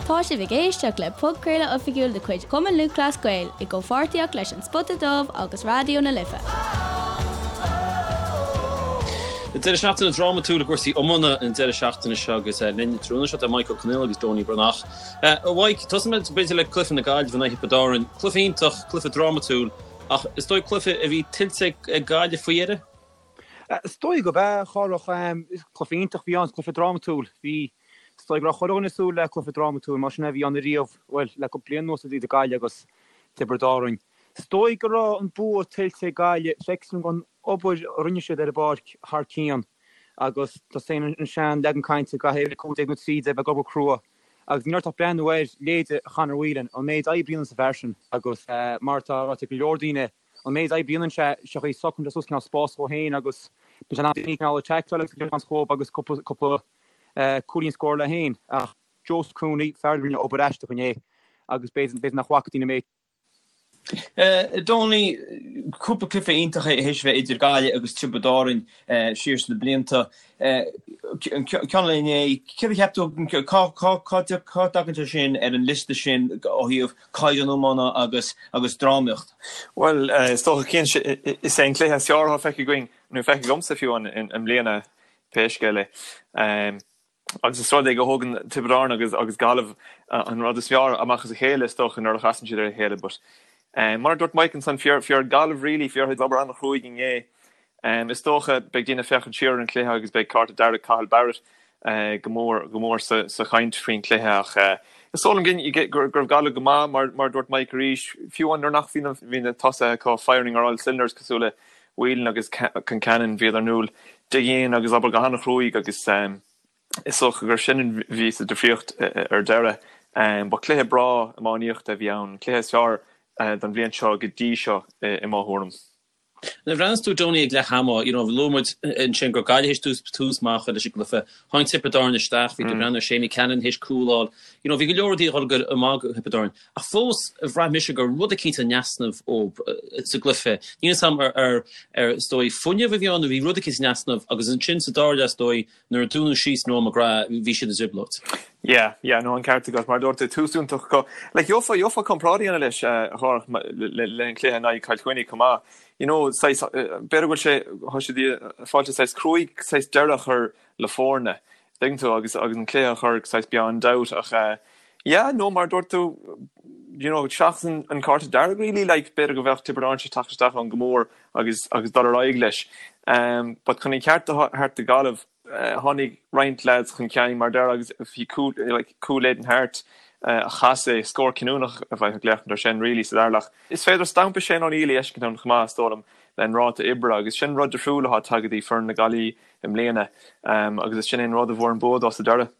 Tá sibh ag éisteacht le podchraoladh oifigiúil de chuid Chumann Lúthchleas Gael i gcomhpháirtíocht leis An Spota Dubh agus Raidió na Life. Deireadh seachtaine drámatúil i gcúrsaí iomána an deireadh seachtaine seo agus linn tráthnóna seo tá Mike Ó Conghaile agus Donie Breathnach. A Mhaidhc, tosóidh muid b'fhéidir le cluiche na Gaillimhe in aghaidh Thiobraid Árann. Cluiche iontach, cluiche drámatúil ach is dóigh cluiche a bhí tuillte ag Gaillimh faoi dheireadh? Is dóigh gurb ea, a Chárthach. Cluiche iontach a bhí ann, cluiche drámatúil. Bhí, is dóigh go raibh chuile dhuine ag súil le cluiche drámatúil, mar sin a bhí ann ariamh, bhuel, le cúpla bliain anuas idir Gaillimh agus Tiobraid Árann. Is dóigh go raibh an bua tuillte ag Gaillimh, feictear dom an obair a rinne siad ar an bpáirc thar cionn agus tá a fhios againn an sean leagan cainte caithfidh 15 nó 13 bheith ag obair crua agus ní raibh ach breathnú ar leithéide Chonor Whelan, an méid oibre a dhéanann an fear sin agus mar atá ráite ag go leor daoine, An méid oibre a dhéanann sé, sé chaoi a socraíonn sé suas cineál spás dhó féin agus bíonn sé in ann daoine cineál a tackle agus a chur chomh agus cúpla cúpla cúilín a scóráil leis féin. Ach Joseph Cooney, fear a rinne obair aisteach inné agus b'fhéidir b'fhéidir nach bhfaca daoine an méid. Donie, cúpla cluiche iontach théis a bheith idir Gaillimh agus Tiobraid Árainn siar sna blianta. An ceann eile inné, céard a cheap tú, cá cá dtagann sé sin ar an liosta sin ó thaobh caighdeán iomána agus agus drámaíocht? Bhuel, is dócha cinnte, is é an cluiche is fearr atá feicthe againn, nó feicthe agamsa fiú i mbliana, pé scéal é. Agus is rud é go thógann Tiobraid Árann agus agus Gaillimh an rud is fearr amach as a chéile is dócha nuair a chasann siad ar a chéile. But mar a dúirt Mike ansan, fuair Gaillimh really, fuair siad obair an-chruaidh inné. Is dócha beidh daoine ag féachaint siar ar an chluiche agus beidh cárta dearg Cathal Barrett go mór go mór sa chaint faoin chluiche ach is dóigh liom go raibh Gaillimh go maith mar a dúirt Mike arís, fiú amháin nuair nach bhí na tosaithe acu firing ar all cylinders cosúil le Whelan agus Concannon, bhíodar in iúl dig in agus obair go han-chruaidh agus is dócha gur sin a bhí sa difríocht ar deireadh. Ba chluiche breá iománaíochta a bhí ann, an cluiche is fearr don bhliain seo go dtí seo i mo thuairim. Nuair a bhreathnaíos tú Donie ag leath ama, you know, luaigh muid ansin go raibh Gaillimh théis tús tús maith a chur leis an gcluiche. Tháinig Tiobraid Árann isteach, bhí tú ag breathnú ar Seamie Callanan théis cúl a fháil. You know, bhí go leor rudaí ag dul go maith do Thiobraid Árann. Ach fós, bhraith mise go raibh rud eicínt in easnamh dóibh sa gcluiche. Níl 'fhios a'm ar ar ar is dóigh fuinneamh a bhí ann nó bhí rud eicínt in easnamh agus ansin sa dara leath is dóigh Nuair a dúnadh síos Noel McGrath, bhí siad i dtrioblóid. Yeah, yeah, no, an ceart agat. Mar a dúirt tú, tús iontach acu. Like, gheofá, gheofá comparáid a dhéanamh leis, a Chárthach, le, le an cluiche in aghaidh Chill Chainnigh chomh maith. You know, saghas, b'fhéidir go bhfuil sé, tá siad ag fáil sé saghas cruaidh, saghas deireadh a chur le foirne, tuigeann tú, agus, agus an cluiche a chur saghas beyond doubt. Ach, eh, yeah, no, mar a dúirt tú, you know, seachas an, an cárta dearg really, like, b'fhéidir go bheadh Tiobraid Árann tar éis teacht isteach ann go mór agus agus dul ar aghaidh leis. But chun an ceart a thabhairt do Ghaillimh, tháinig roinnt lads chun cinn mar deir agus bhí cúl like cúl Aidan Harte a chas é, scór cinniúnach a bheadh ag léacht air sin really sa dara leath. Is féidir stampa Shane O'Neill a fheiscint ann chomh maith is dóigh liom le an ráta oibre agus sin rud difriúil atá tagtha dtí foireann na Gaillimhe i mbliana agus is sin é an rud a bhfuair an bua dó sa deireadh.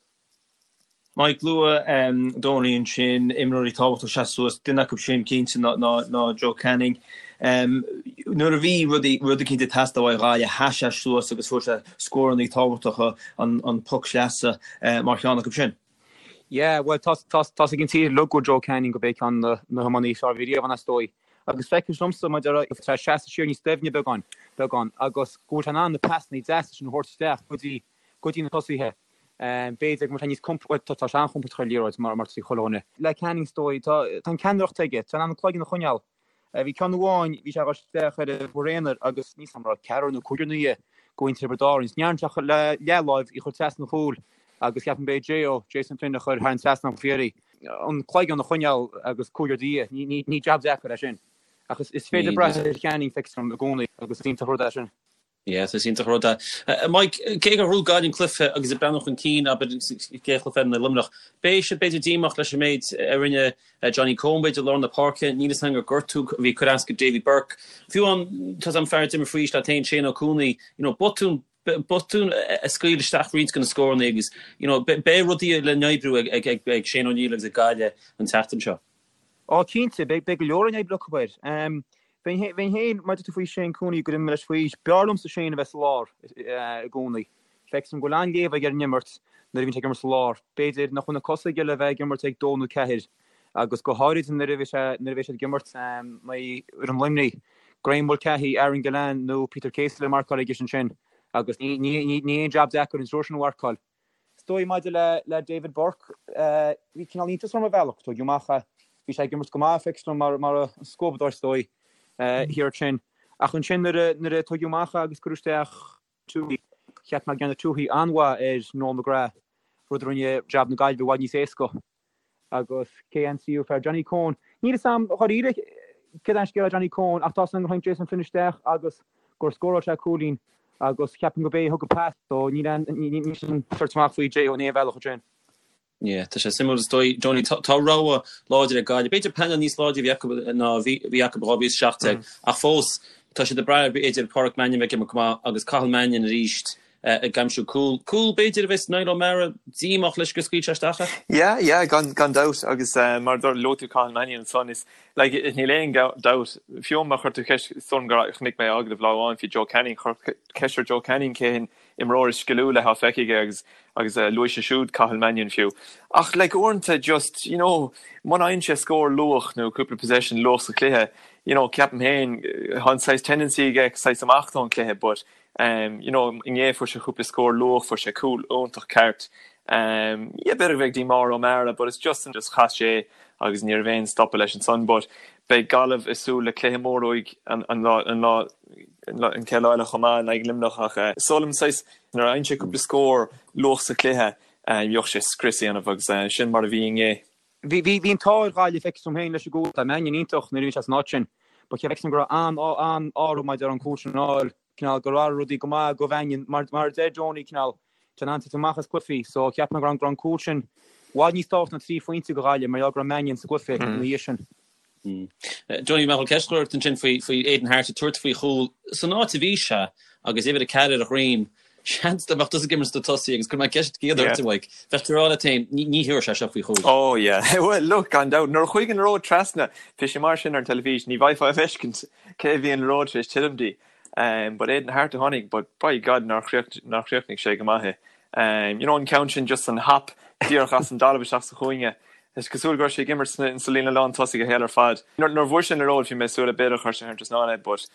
Mike, luaigh Donie ansin imreoirí tábhachtacha ag seasamh suas, duine acu sin cinnte ná Joe Canning. Nuair a bhí rudaí, rud eicínt ag teastáil uaidh Ghaillimh, sheas sé suas agus fuair sé scórannaí tábhachtacha, an poc sleasa mar cheann acu sin. Yeah, bhuel tá tá's ag an tír uilig go Joe Canning gurb é ceann de na hiománaithe is fearr a bhí riamh ann is dóigh. Agus feictear domsa mar a deir tá sé seasamh siar níos doimhne beagán, beagán, agus go bhfuil sé in ann na pasannaí deasa sin a thabhairt isteach go dtí, go dtí na tosaithe. B'fhéidir go mbeadh sé níos compord, bhuel tá sé an-chompordach ar an liathróid mar atá chuile dhuine. Le Canning is dóigh, tá an ceannaireacht aige, tá sé in ann an cloigeann a choinneáil. Bhí ceann amháin, bhí sé ag dul isteach ar an bhfear aonair agus níl 's a'm an raibh ceathrar nó cúigear ina dhiaidh de mhuintir Thiobraid Árann. Ní dhearna sé ach le leathláimh í a chur trasna an chúil agus ceapaim b'é J.O. Jason Flynn a chuir thar an trasnán faoi dheireadh í. An cloigeann a choinneáil agus cúigear i do dhiaidh, ní jab deacair é sin. Ach is féidir brath ar Channing, feictear dom i gcónaí agus is iontach an rud é sin. Yes, is iontach an rud é. Mike, cé gur bhuaigh Gaillimh an cluiche agus ag breathnú chun cinn, abair, sa gcéad chluiche eile in aghaidh Luimneach, beidh siad b'fhéidir díomách leis an méid a rinne Johnny Coen, b'fhéidir, i lár na páirce. Níl 'fhios a'm gur gortú a bhí ag cur as go Davy Burke. Fiú amháin, tá 's a'm fear a d'imir faoi aois leat féin, Shane Ó Cuanaigh, you know, botún, botún a scaoil isteach roinnt de na scóranna agus, you know, beidh rudaí le n-oibriú ag, ag, ag Shane O'Neill agus ag Gaillimh an tseachtain seo. Á, cinnte, beidh go leor le n-oibriú acu air. Bheinn féin, mar a dúirt tú faoi Shane Cooney, gur imir leis faoi aois, b'fhearr liomsa Shane a bheith sa lár i gcónaí. Feictear dom go bhfuil an-léamh aige ar an imirt nuair a bhíonn sé ag imirt sa lár. B'fhéidir nach bhfuil na cosa aige le bheith ag imirt ag dó nó ceathair agus go háirid nuair a bhí sé, nuair a bheidh siad ag imirt in aghaidh fhoireann Luimnigh, Graeme Mulcahy, Aaron Gillane nó Peter Casey le marcáil aige ansin agus ní, ní, ní, ní aon jab deacair an triúr sin a mharcáil. dóigh maidir le le David Burke, bhí cineál iontas orm ar bhealach, tógadh amach é. Bhí sé ag imirt go maith, feictear dom, mar mar an scuabadóir is dóigh, thiar ansin. Ach ansin nuair a nuair a tógadh amach é agus cuireadh isteach Tuohy, cheap mé go ndearna Tuohy an-mhaith ar Noel McGrath, rud a rinne jab na Gaillimhe i bhfad níos éasca. Agus cé an tríú fear? Johnny Coen. Níl fhios a'm dháiríre céard é an scéal le Johnny Coen ach tá 'fhios a'm gur tháinig Jason Flynn isteach agus gur scóráil sé cúilín agus ceapaim go b'é a thug an pas so níl aon níl sin tuirte amach faoi J.O. in aon bhealach ansin. Yeah, tá sé suimiúil is dóigh, Johnny, tá rogha láidir ag Gaillimh. B'fhéidir painéal níos láidre a bhí acu ná a bhí acu i 2017 ach fós tá siad ag brath ar b'fhéidir Páraic Mannion bheith ag imirt go maith agus Cathal Mannion arís ag aimsiú cúl. Cúl, b'fhéidir, a bheas Niall O'Meara díomách leis gur scaoil sé isteach é. Yeah, yeah, gan, gan dabht agus mar a luaigh tú Cathal Mannion ansan is, like, níl aon dabht, fiú má chuir tú ceist, is dóigh liom gur chonaic mé agallamh lá amháin faoi Joe Canning, chuir ceist ar Joe Canning cé an imreoir is sciliúla atá feicthe aige agus, agus luaigh sé siúd Cathal Mannion fiú. Ach, like, uaireanta just, you know, muna fhaigheann sé scór luath nó cúpla possession luath sa chluiche, you know, ceapaim féin, tá an saghas tendency aige saghas imeacht ón chluiche but, You know, inné fuair sé cúpla scór luath, fuair sé cúl iontach ceart. Yeah, b'fhéidir go bheadh díomá ar O'Meara but it's just just chas sé agus ní raibh aon stopadh leis ansan but beidh Gaillimh ag súil le cluiche mór uaidh an an lá an lá an chéad lá eile chomh maith in aghaidh Luimneach ach is dóigh liom saghas nuair a fhaigheann sé cúpla scór luath sa chluiche bheadh sé scrios a dhéanamh agus sin mar a bhí inné. Bhí bhí an t-ádh ar Ghaillimh feictear dom féin leis an gcúl. Tá Mannion iontach nuair a bhíonn sé san áit sin. But feictear dom go raibh an-ádh orthu maidir an cúl sin a fháil. Cineál gur athraigh rudaí go maith do Mhannion. Mar mar a deir Donie cineál tá sé in ann titim amach as cluichí. So cheap mé go raibh an cúl sin i bhfad níos tábhachtaí ná 3 phointe do Ghaillimh mar gheall go raibh Mannion sa gcluiche ina dhiaidh sin. Donie, mé chun ceist a chur ort ansin faoi faoi Aidan Harte ag tabhairt faoi chúl san áit a bhí sé agus uimhir 4 ar a dhroim. Seans dá mbeadh tusa ag imirt sna tosaí agus cuirfidh mé ceist chéanna ort, a Mhaidhc, bheadh tú ag rá leat féin, ní thabharfaidh sé seo faoi chúl. Oh yeah, well look, gan dabht, nuair a chuaigh an liathróid trasna, bhí sé mar sin ar an teilifís, ní bhfaighfeá a fheiscint cé a bhí an liathróid tar éis titim di. But Aidan Harte a tháinig, but by God nár chríochnaigh sé go maith é. You know an ceann sin just an hop díreach as an dtalamh isteach sa chúinne. Is cosúil go raibh sé ag imirt sa líne lán tosaigh a shaol ar fad. Nuair a bhuail sé an liathróid bhí mé ag súil le b'fhéidir chuir sé thar an trasnán é but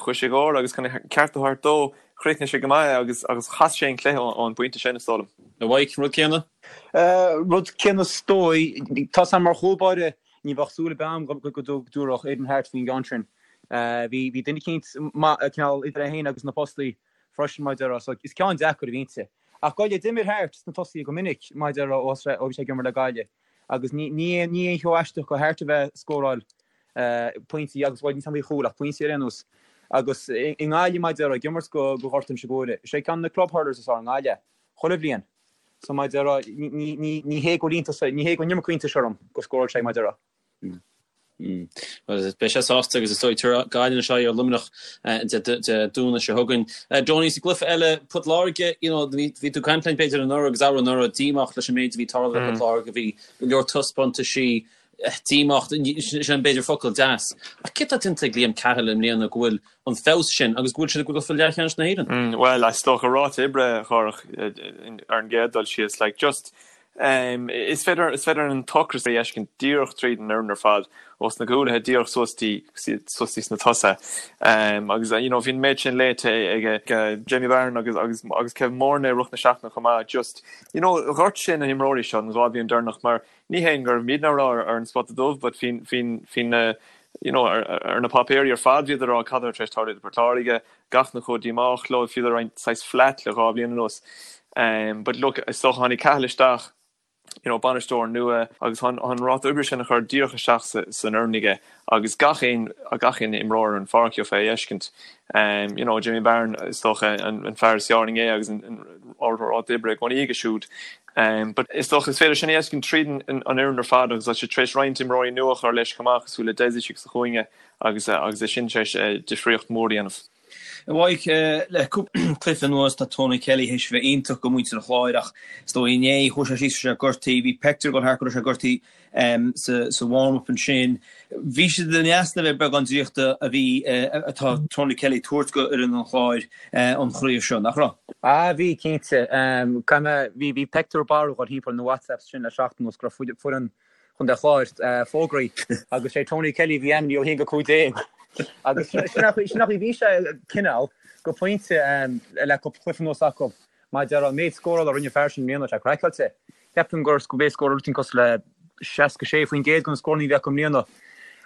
chuaigh sé dhó agus chun an ceart a thabhairt dó chríochnaigh sé go maith é agus agus chas sé an cluiche ón bpointe sin is dóigh liom. A Mhaidhc, an rud céanna? Rud céanna is dóigh. Tá 's a'm mar chúl báire ní bheadh súil ar bith a'm go dtabharfadh Aidan Harte faoin gceann sin. Bhí bhí duine eicínt maith cineál idir é féin agus na postaí freisin mar a déarfá so is ceann deacair a bhí inti. Ach Gaillimh, d'imir Harte sna tosaithe go minic mar a déarfá ó bhí sé ag imirt le Gaillimh agus ní ní aon ní aon cheo aisteach do Harte a bheith ag scóráil pointí agus bhuel níl 's a'm faoi chúil ach pointí ar aon nós. Agus i nGaillimh mar a déarfá ag imirt do do Ghort Inse Guaire. Is é ceann de na club hurlers is fearr i nGaillimh chuile bhliain. So mar a déarfá ní ní ní hé go bhfuil iontas ní hé go bhfuil an iomarca iontais orm go scóráil sé mar a déarfá. Bhuel, beidh sé sásta agus is dóigh tabharfaidh Gaillimh anois aghaidh ar Luimneach Dé Domhnaigh seo chugainn. Donie, sa gcluiche eile, Port Láirge, you know, bhí tú ag caint linn b'fhéidir anuraidh agus arú-anuraidh, díomách leis an méid a bhí ag tarlú le Port Láirge, bhí go leor taispeántaisí díomách, sin b'fhéidir focal deas. Ach céard atá déanta ag Liam Cahill i mbliana go bhfuil an feabhas sin agus go bhfuil siad ag dul go leathcheannais na hÉireann? Bhuel, is dócha ráta oibre, a Chárthach, ar an gcéad dul síos, like, just, Is féidir is féidir an t-ocras a fheiscint díreach tríd an fhoireann ar fad, ós na cúlaithe díreach suas dtí suas dtí sna tosaithe. Agus you know bhí an méid sin léite ag Jamie Barron agus agus agus Kevin Moran i rith na seachtaine chomh maith. Just you know dhoirt sé na himreoirí seo an 2 bhliain deireanach mar ní hé go raibh muidne á rá ar an Spota Dubh but bhí bhí bhí na you know ar ar na páipéirí ar fad bhíodar ag rá cad atá tar éis tarlú do Port Láirge, gach duine chomh díomách leo, bhíodar roinnt saghas flat le 2 bhliain anuas. But look, is dócha tháinig Cahill isteach, you know, bainisteoir nua agus tá an ráta oibre sin a chur díreach isteach san fhoireann aige agus gach aon gach aon imreoir ar an pháirc gheofá é a fheiscint. You know, Jimmy Barron is dócha an fear is fearr inné agus an ráta oibre i gcónaí aige siúd. But is dócha is féidir sin a fheiscint tríd an fhoireann ar fad agus tá sé tar éis roinnt imreoirí nua a chur leis chomh maith cosúil le Dessie sa chúinne agus agus é sin tar éis difríocht mhór a dhéanamh. A Mhaidhc, le cúpla cluiche anuas tá Tony Kelly théis a bheith iontach do mhuintir an Chláir ach is dóigh inné chuaigh sé síos sé gortaithe, bhí pictiúr ag dul thart go raibh sé gortaithe sa warm-up ansin. Bhí siad in easnamh ar beagán draíochta a bhí atá Tony Kelly ag tabhairt go fhoireann an Chláir an chraobh seo, nach raibh? Ah bhí, cinnte. Caithfidh mé, bhí bhí pictiúr barrúil ag dul thimpeall na WhatsApps sin le seachtain anuas go raibh foireann Chontae Chláir fógraithe agus sé Tony Kelly a bhí ainmnithe ó 1-15 agus sin an chaoi a bhí sé cineál go pointe le cúpla cluiche anuas acu. Mar a déarfá, an méid scórála a rinne an fear sin i mbliana, tá sé craiceáilte. Ceapaim gur gurb é scóráil rud éigin cosúil le 66% de na scóranna a bhí acu i mbliana.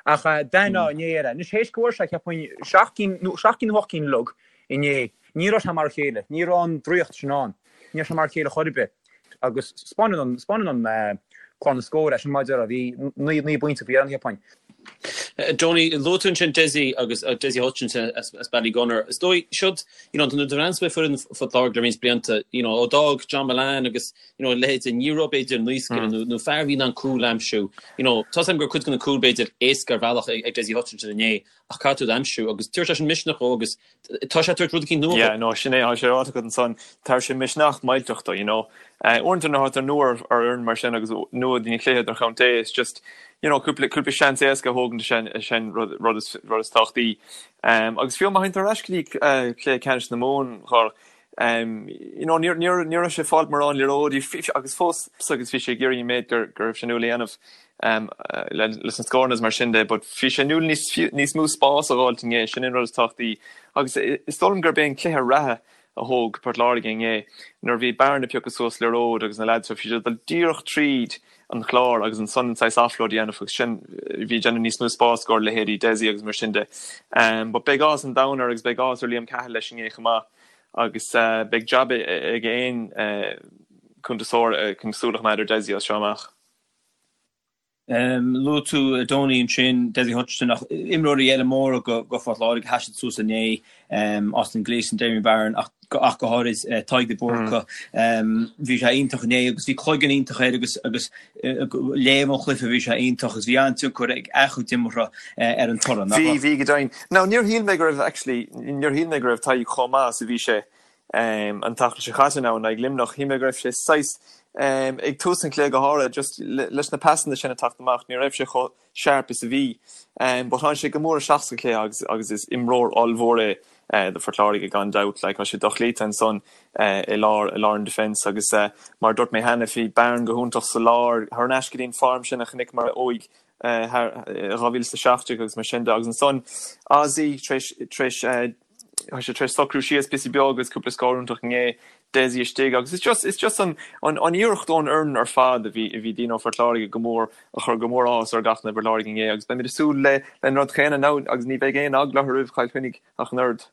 Ach d'aithneofá inné air é. Anois théis go bhfuair sé, cheapfainn, seacht gcinn nó seacht gcinn nó ocht gcinn uilig inné, ní raibh sé mar a chéile. Ní raibh an draíocht sin ann. Ní raibh sé mar a chéile chor ar bith. Agus 'spáineann an, 'spáineann an clár na scór é sin mar a déarfá, bhí 9 bpointe faoi dheireadh, cheapfainn. Donie, luaigh tú ansin Dessie agus Dessie Hutchinson as Ballygunner. Is dóigh, siod, you know, nuair a bhreathnaíonn tú ar foireann Phort Láirge le roinnt blianta, you know, ó d'fhág John Mullane agus, you know, a leithéid, ní raibh b'fhéidir naoscaire nó, nó fear a bhí in ann cúl a aimsiú. You know, tá 's agam go raibh cuid de na cúil b'fhéidir éasca ar bhealach ag, ag Dessie Hutchinson inné ach caithfidh tú iad a aimsiú agus tabharfaidh sé sin misneach dó agus tá sé ag tabhairt rud eicínt nua dó. Yeah, no, sin é, tá sé ráite agat ansan, tabharfaidh sé misneach millteach dó, you know. Uaireanta nuair atá tú nua ar fhoireann mar sin agus nua don chluiche idirchontae, it's just, you know, cúpla, cúpla seans éasca a thógaint sin, sin rud, rud is, rud is tábhachtaí. Agus fiú má théann tú ar ais go dtí cluiche ceannais na Mumhan, Chárthach, you know, ní, ní, ní raibh sé ag fáilt mórán liathróidí agus fós agus bhí sé ag iarraidh an méid gur, go raibh sé inniúil a dhéanamh leis na scóranna is mar sin de, but bhí sé inniúil níos, níos mó spás a dh'fháilt inné, sin an rud is tábhachtaí. Agus is dóigh liom gurb é an cluiche reatha a thóg Port Láirge inné, nuair a bhí Barron ag piocadh suas liathróid agus na leaids, bhí siad ag dul díreach tríd an chlár agus ansan an saghas offload a dhéanamh agus sin, bhí ag déanamh níos mó spás i gcomhair leithéidí Dessie agus mar sin de. But beidh áthas an domhain air agus beidh áthas ar Liam Cahill leis inné chomh maith agus beidh jab ag aon cuntasóir chun súil a choimeád ar Dessie as seo amach. Luaigh tú Donie ansin, Dessie Hutchinson, ach imreoirí eile móra do Phort Láirge a sheas suas inné, Austin Gleeson, Damien Barron ach ach go háirid Tadhg de Búrca. Bhí sé iontach inné agus bhí cloigeann iontach air agus agus léamh an chluiche bhí sé iontach agus bhí an-tionchar ag a chuid imeartha ar an toradh, nach raibh? Bhí, bhí go deimhin. Now níor shíl mé go raibh actually, níor shíl mé go raibh Tadhg chomh maith is a bhí sé an tseachtain seo chaite now in aghaidh Luimneach. Shíl mé go raibh sé saghas, ag tús an chluiche go háirithe, just leis na pasanna sin ag teacht amach, ní raibh sé chomh sharp is a bhí. But tháinig sé go mór isteach sa chluiche agus agus is imreoir ollmhór é do Phort Láirge gan dabht. Like, tá sé dochloíte ansan i lár, i lár an defence agus mar a dúirt mé cheana, bhí Barron go hiontach sa lár, thar n-ais go dtí an form sin a chonaiceamar uaidh thar 2017 agus mar sin de. Agus ansan Ozzy tar éis, tar éis, Tá sé tar éis socrú síos píosa beag agus cúpla scór iontach inné, Dessie istigh agus it's just, it's just an, an, an iarracht ón fhoireann ar fad a bhí, a bhí daoine ó Phort Láirge go mór, a chuir go mór áthas ar gach duine i bPort Láirge inné agus beimid ag súil le, le an rud chéanna now agus ní bheidh aon eagla orthu roimh Chill Chainnigh ach an oiread.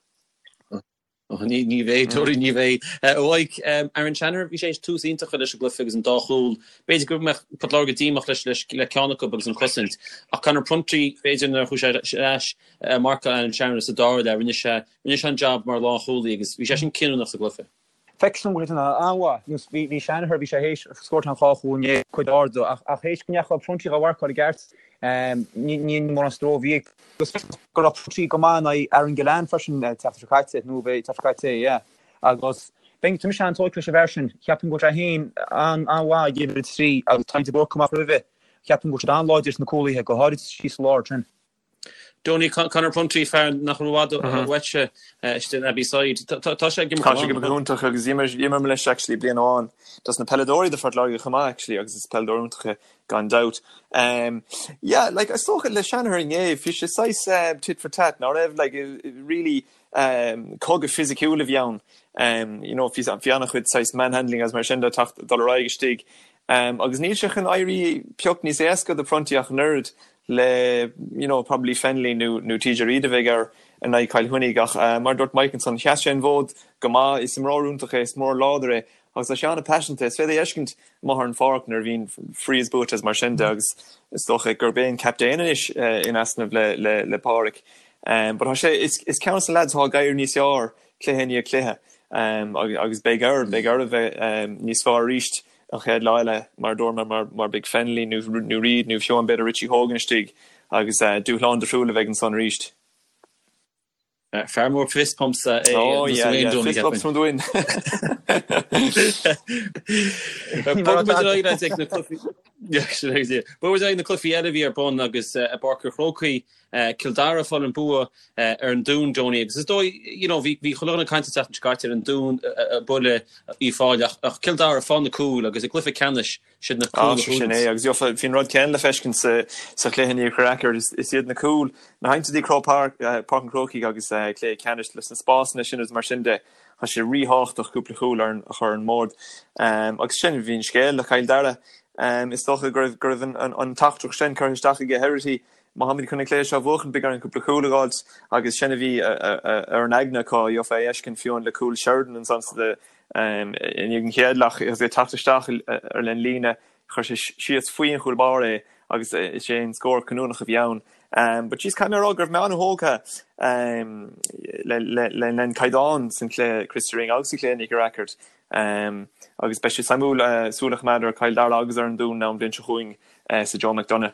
Ní, ní bheidh, Tony, ní bheidh. A Mhaidhc, Aaron Shanahan, bhí sé tar éis tús iontach a chur leis an gcluiche agus an dá chúl. B'fhéidir go mbeadh Port Láirge díomách leis, leis, le ceann acu agus an chosaint. Ach Conor Prunty, b'fhéidir nuair a chuaigh sé ar ais, marcáil Aaron Shanahan sa dara leath, rinne sé, rinne sé an jab mar lánchúlaí agus bhí sé sin cinniúnach sa gcluiche. Feictear dom go raibh an-mhaith, nó bhí, bhí Shanahan, bhí sé théis scóráil an dhá chúl inné, cuid ard, ach, ach théis go ndeachaigh Prunty dhá mharcáil i gceart, ní, ní mórán stró a bhí ag, agus go raibh Prunty go maith in aghaidh Aaron Gillane freisin an tseachtain seo caite, nó bhí an tseachtain seo caite é, yeah. Agus bheinn, tá mise an-tógtha leis an bhfear sin, cheapfainn go bhfuil sé féin an-mhaith ag uimhir a 3 agus Tadhg de Búrca amach roimhe, cheapfainn go bhfuil siad an-láidir sna cúlaithe, go háirid síos sa lár sin. Donie, Conor Prunty, fear nach raibh i bhfad uaitse istigh in Abbeyside. Tá sé ag imirt Tá sé ag imirt go hiontach agus d'imir mé leis actually bliain amháin. Dos na peileadóirí do Phort Láirge chomh maith actually agus is peileadóir iontach é gan dabht. Yeah, like is dócha le Shanahan inné, bhí sé saghas tit for tat, ná raibh like really cogadh fisiciúil a bhí ann. You know, bhí an-chuid saghas manhandling agus mar sin de teacht dul ar aghaidh istigh. Agus níl sé chun éirí pioc níos éasca do Prunty ach an oiread le you know probably Fennelly nó nó TJ Reid a bheidh air in aghaidh Chill Chainnigh ach mar a dúirt Mike ansan, sheas sé an fód go maith, is imreoir iontach é, is imreoir láidir é agus tá sé an-paiseanta, is féidir é a fheiscint amuigh ar an pháirc nuair a bhíonn frees buaite is mar sin de agus is dócha gurb é an captaen anois in easnamh le le le Pádraic. But tá sé, is is ceann de na lads atá ag éirí níos fearr cluiche i ndiaidh cluiche agus beidh air, beidh air a bheith níos fearr arís an chéad lá eile, mar a dúirt mé, mar beidh Fennelly nó Reid nó fiú amháin b'fhéidir Richie Hogan istigh agus dúshlán difriúil a bheidh ansan arís. Fear mór fist pumps é Oh yeah, yeah, fist bumps from the win. Bogfaidh muid ar aghaidh ag na cluichí Bogfaidh muid ar aghaidh na cluichí eile a bhí ar bun agus i bPáirc an Chrócaigh Cill Dara ag fáil an bua ar an Dún, Donie, agus is dóigh, you know, bhí bhí chuile dhuine ag caint an tseachtain seo caite ar an Dún ag bualadh Uíbh Fhailí ach ach Cill Dara ag fáil na cúil agus i gcluiche ceannais siad na cúil a Sin é agus bhí an rud céanna le feiscint sa sa chluiche in Iarthar Acair is is iad na cúil nuair a théann tú dtí Croke Park Páirc an Chrócaigh agus cluiche ceannais leis na spásanna sin agus mar sin de. Tá sé ríthábhachtach cúpla cúl a chur ar an mbord. Agus sin a bhí an scéal le Cill Dara. Is dócha go raibh go raibh an teachtaireacht sin curtha isteach aige Herity, má tháimid chun an cluiche seo a bhuachan beidh orainn cúpla cúl a dh'fháilt agus sin a bhí ar an aigne acu, gheofá é a fheiscint fiú amháin le cúl Sheridan ansan sa i ndiaidh an chéad leath agus é ag teacht isteach ar an líne Chuir sé síos faoi an chúl báire é agus is é an scór cinniúnach a bhí ann. But jeez, caithfidh mé a rá go raibh mé an-thógtha le an caighdeán san chluiche Christy Ring agus sa chluiche Nicky Rackard. Agus beidh sé suimiúil súil a choimeád ar Chill Dara agus ar an Dún an bhliain seo chugainn sa Joe McDonagh.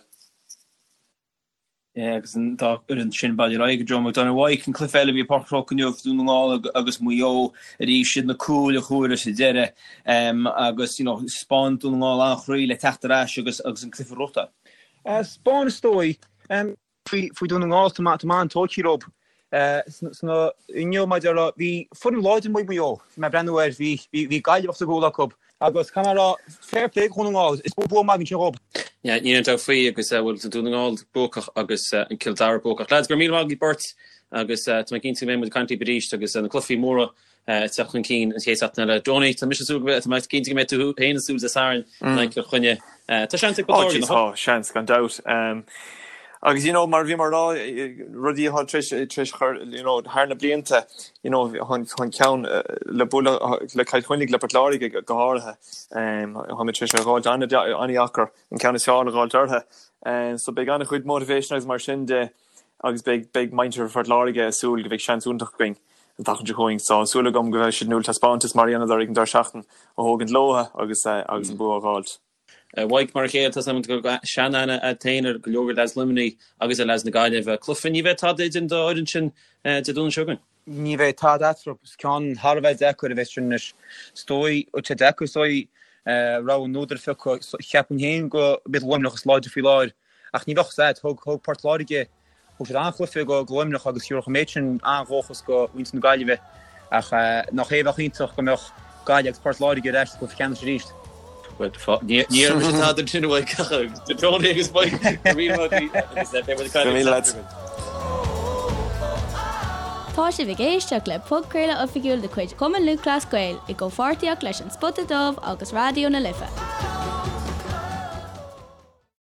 Agus an dá fhoireann sin bailithe ar aghaidh go Joe McDonagh. Mike, an cluiche eile a bhí i bPáirc an Chrócaigh inniu, Dún na nGall agus Maigh Eo arís, siad na cúil a chuaigh sa deireadh agus you know 'spáin Dún na nGall an-chroí le teacht ar ais agus agus an cluiche a ghnóthachtáil. 'Spáin is dóigh. Faoi Dún na nGall tá mé an-tógtha leo. Sna inniu mar a déarfá bhí foireann láidir amuigh ag Maigh Eo. Bhí mé ag breathnú air, bhí bhí Gaillimh os a gcúl acu. Agus caithfidh mé a rá, fair play do Dhún na nGall, is bua maith ansin dhób. Yeah, níl aon dabht faoi agus bhuel tá Dún na nGall buacach agus an Cill Dara buacach. Lads, go raibh míle maith agaibh beirt agus tá mé cinnte go mbeidh muid ag caint libh arís agus na cluichí móra ag teacht chun cinn an chéad seachtain eile. Donie, tá mise ag súil go mbeidh, tá mé cinnte go mbeidh tú féin ag súil Dé Sathairn in aghaidh Chill Chainnigh. Tá seans ag Port Láirge, nach bhfuil? Tá seans, gan dabht. Agus you know, mar a bhí mé ag rá, rudaí atá tar éis, tar éis chur, you know, thar na blianta, you know, an ceann le bualadh le Cill Chainnigh, le Port Láirge go háirithe, táimid tar éis é a dh'fháilt an-deacair, an ceann is fearr a dh'fháilt orthu. So beidh an-chuid motivation agus mar sin de agus beidh, beidh muintir Phort Láirge ag súil go mbeidh seans iontach againn an tseachtain seo chugainn. So súil agam go mbeidh siad in ann taispeántas mar a dhéanadar ag an deireadh seachtain a thógaint leo agus, agus an bua a dh'fháilt. Mike, mar a chéile, tá a fhios agam go bhfuil sean-aithne agat féin ar go leor de leaids Luimnigh agus ar leaids na Gaillimhe. Cluiche, ní bheidh tada idir an dá fhoireann sin Dé Domhnaigh seo chugainn. Ní bheidh tada eatarthu. Is ceann thar a bheith deacair a bheas sin anois. Is dóigh, tá sé deacair, is dóigh, rogha an údair a phiocadh. Cheapfainn féin go mb'iad Luimneach is láidre faoi láthair ach ní bheadh a fhios agat. Thug Port Láirge Thug siad an-chluiche do Luimneach agus thabharfadh an méid sin an-dhóchas do mhuintir na Gaillimhe ach nach é a bheadh iontach go mbeadh Gaillimh agus Port Láirge ar ais sa gcluiche ceannais arís. Bhuel, ní dhéarfaidh mise tada ansin a Mhaidhc ach Tony agus Mike, go raibh míle maith agaibh agus beidh muid ag caint libh an tseachtain seo chugainn. Tá sibh ag éisteacht le podchraoladh oifigiúil de chuid Chumann Lúthchleas Gael i gcomhpháirtíocht leis An Spota Dubh agus Raidió na Life.